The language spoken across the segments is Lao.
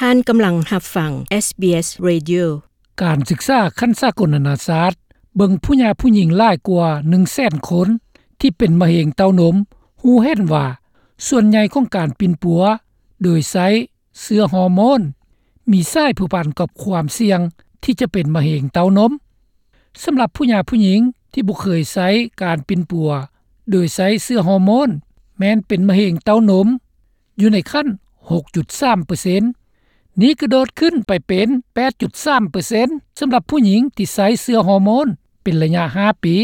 ທ່ານກຳລັງຮັບຟັງ SBS Radio. ການສຶກສາຂັ້ນສາກົນນານາຊາດເບິ່ງຜູ້ຍາຜູ້ຍິງຫຼາຍກວ່າໜຶ່ງແສນຄົນທີ່ເປັນມະເຮັງເຕົ້ານົມ ຮູ້ເຫັນວ່າສ່ວນໃຫຍ່ຂອງການປິ່ນປົວໂດຍໃຊ້ເຊື້ອຮໍໂມນ ມີສາຍພົວພັນກັບຄວາມສ່ຽງທີ່ຈະເປັນມະເຮັງເຕົ້ານົມ. ສຳລັບຜູ້ຍາຜູ້ຍິງທີ່ບໍ່ເຄີຍໃຊ້ການປິ່ນປົວໂດຍໃຊ້ເຊື້ອຮໍໂມນ ແມ່ນເປັນມະເຮັງເຕົ້ານົມ ຢູ່ໃນຂັ້ນຫົກຈຸດສາມເປີເຊັນ. ນີ້ກະໂດດຂຶ້ນໄປເປັນແປດຈຸດສາມເປີເຊັນ ສຳລັບຜູ້ຍິງທີ່ໃຊ້ເຊື້ອຮໍໂມນເປັນໄລຍະຫ້າປີ.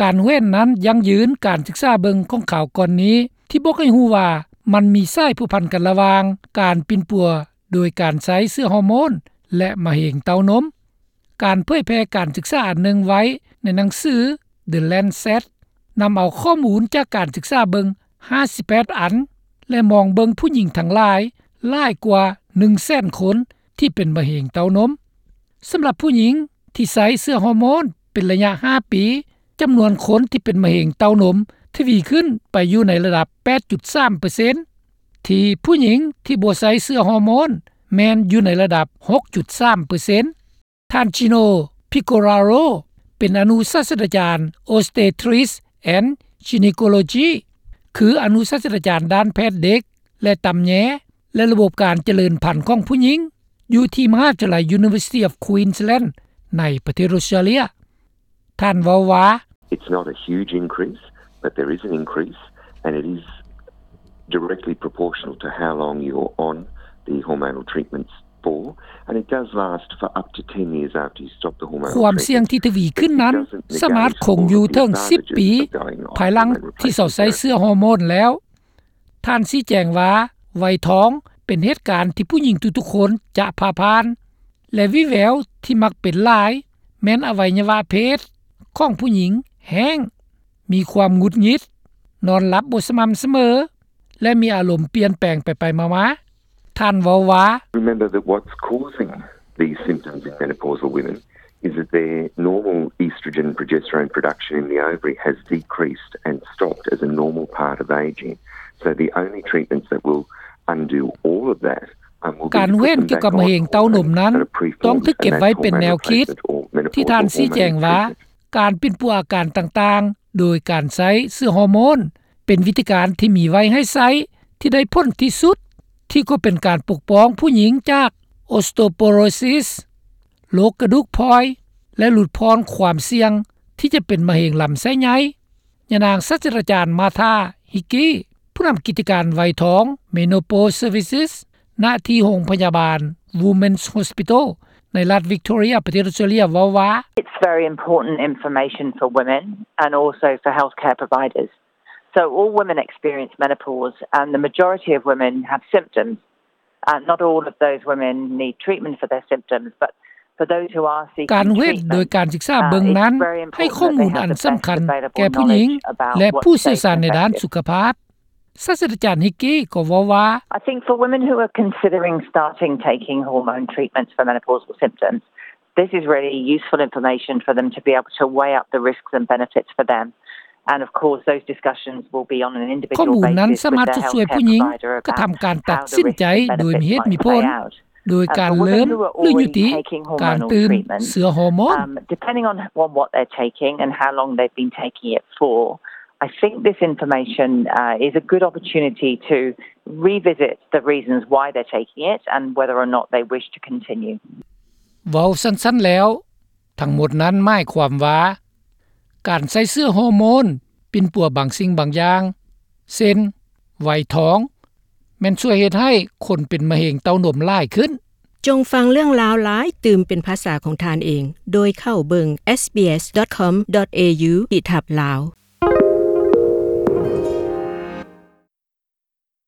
ການເຫັນນັ້ນຢັ້ງຢືນການສຶກສາເບິ່ງຂອງຄາວກ່ອນນີ້ ທີ່ບອກໃຫ້ຮູ້ວ່າມັນມີສາຍພົວພັນກັນລະຫວ່າງການປິ່ນປົວໂດຍການໃຊ້ເຊື້ອຮໍໂມນ ແລະ ມະເຮັງເຕົ້ານົມ. ການເຜີຍແຜ່ການສຶກສາອັນໜຶ່ງໄວ້ໃນໜັງສື The Lancet ນຳເອົາຂໍ້ມູນຈາກການສຶກສາເບິ່ງຫ້າສິບແປດອັນ ແລະ ມອງເບິ່ງຜູ້ຍິງທັງຫຼາຍ ຫຼາຍກວ່າໜຶ່ງແສນຄົນທີ່ເປັນມະເຮັງເຕົ້ານົມ. ສຳລັບຜູ້ຍິງທີ່ໃຊ້ເຊື້ອຮໍໂມນເປັນໄລຍະຫ້າປີ ຈຳນວນຄົນທີ່ເປັນມະເຮັງເຕົ້ານົມທະວີຂຶ້ນໄປຢູ່ໃນລະດັບແປດຈຸດສາມເປີເຊັນ ທີ່ຜູ້ຍິງທີ່ບໍ່ໃຊ້ເຊື້ອຮໍໂມນແມ່ນຢູ່ໃນລະດັບຫົກຈຸດສາມເປີເຊັນ. ທ່ານ Gino Piccioraro ເປັນອະນຸສາດສະດາຈານ Obstetrics and Gynecology ຄືອະນຸສາດສະດາຈານດ້ານແພດເດັກ ແລະ ຕຳແຍ ແລະ ລະບົບການຈະເລີນພັນຂອງຜູ້ຍິງ ຢູ່ທີ່ມະຫາວິທະຍາໄລ University of Queensland ໃນປະເທດອົດສະຕຣາເລຍ. ທ່ານເວົ້າວ່າ It's not a huge increase, but there is an increase, and it is directly proportional to how long you're on the hormonal treatments for, and it does last for up to ten years after you stop the hormonal treatment. ຄວາມສ່ຽງທີ່ທະວີຂຶ້ນນັ້ນ ສາມາດຄົງຢູ່ເຖິງສິບປີ ພາຍຫຼັງທີ່ເຊົາໃຊ້ເຊື້ອຮໍໂມນແລ້ວ. ທ່ານຊີ້ແຈງວ່າ ໄວທອງເປັນເຫດການທີ່ຜູ້ຍິງທຸກໆຄົນຈະຜ່າຜ່ານ ແລະ ວີແວວທີ່ມັກເປັນຫຼາຍ ແມ່ນອະໄວຍະວະເພດຂອງຜູ້ຍິງແຫ້ງ, ມີຄວາມຫງຸດຫງິດ, ນອນຫຼັບບໍ່ສະໝ່ຳສະເໝີ ແລະ ມີອາລົມປ່ຽນແປງໄປໆມາໆ. ທ່ານເວົ້າວ່າ Remember that what's causing these symptoms in menopausal women is that their normal estrogen progesterone production in the ovary has decreased and stopped as a normal part of aging. So the only treatments that will undo all of that ການເຫັນກ່ຽວກັບມະເຮັງເຕົ້ານົມນັ້ນ ຕ້ອງຖືກເກັບໄວ້ເປັນແນວຄິດ ທີ່ທ່ານຊີ້ແຈງວ່າ ການປິ່ນປົວອາການຕ່າງໆ ໂດຍການໃຊ້ເຊື້ອຮໍໂມນ ເປັນວິທີການທີ່ມີໄວ້ໃຫ້ໃຊ້ ທີ່ໄດ້ຜົນທີ່ສຸດ ທີ່ກໍເປັນການປົກປ້ອງຜູ້ຍິງຈາກ osteoporosis ໂລກກະດູກພອຍ ແລະ ຫຼຸດຜ່ອນຄວາມສ່ຽງທີ່ຈະເປັນມະເຮັງລຳໄສ້ໃຫຍ່. ຍານາງສາດສະດາຈານ Martha Hickey ຜູ້ນຳກິດຈະການໄວທອງ Menopause Services ນະທີ່ໂຮງພະຍາບານ Women's Hospital ໃນລັດ Victoria ປະເທດ Australia ເວົ້າວ່າ It's very important information for women and also for healthcare providers. So all women experience menopause, and the majority of women have symptoms. Uh, not all of those women need treatment for their symptoms, but for those who are seeking treatment, ການເຫັນໂດຍການສຶກສາເບິ່ງນັ້ນ ໃຫ້ຂໍ້ມູນອັນສຳຄັນແກ່ຜູ້ຍິງ ແລະ ຜູ້ຊ່ຽວຊານໃນດ້ານສຸຂະພາບ. ສາດສະດາຈານ Hickey ກໍເວົ້າວ່າ I think for women who are considering starting taking hormone treatments for menopausal symptoms, this is really useful information for them to be able to weigh up the risks and benefits for them. And of course, those discussions will be on an individual basis with their healthcare provider about how the risks and benefits might play out. ໂດຍການເລີ່ມ ຫຼື ຍຸຕິ ການຕື່ມເຊື້ອຮໍໂມນ. Um, depending on, on what they're taking and how long they've been taking it for, I think this information, uh, is a good opportunity to revisit the reasons why they're taking it and whether or not they wish to continue. ເວົ້າສັ້ນໆແລ້ວ, ທັງໝົດນັ້ນໝາຍຄວາມວ່າ ການໃຊ້ເຊື້ອຮໍໂມນປິ່ນປົວບາງສິ່ງບາງຢ່າງ ເຊັ່ນ ໄວທອງ ແມ່ນຊ່ວຍເຮັດໃຫ້ຄົນເປັນມະເຮັງເຕົ້ານົມຫຼາຍຂຶ້ນ. ຈົ່ງຟັງເລື່ອງລາວຫຼາຍຕື່ມເປັນພາສາຂອງທ່ານເອງ ໂດຍເຂົ້າເບິ່ງ SBS dot com dot au ທີ່ທັບລາວ.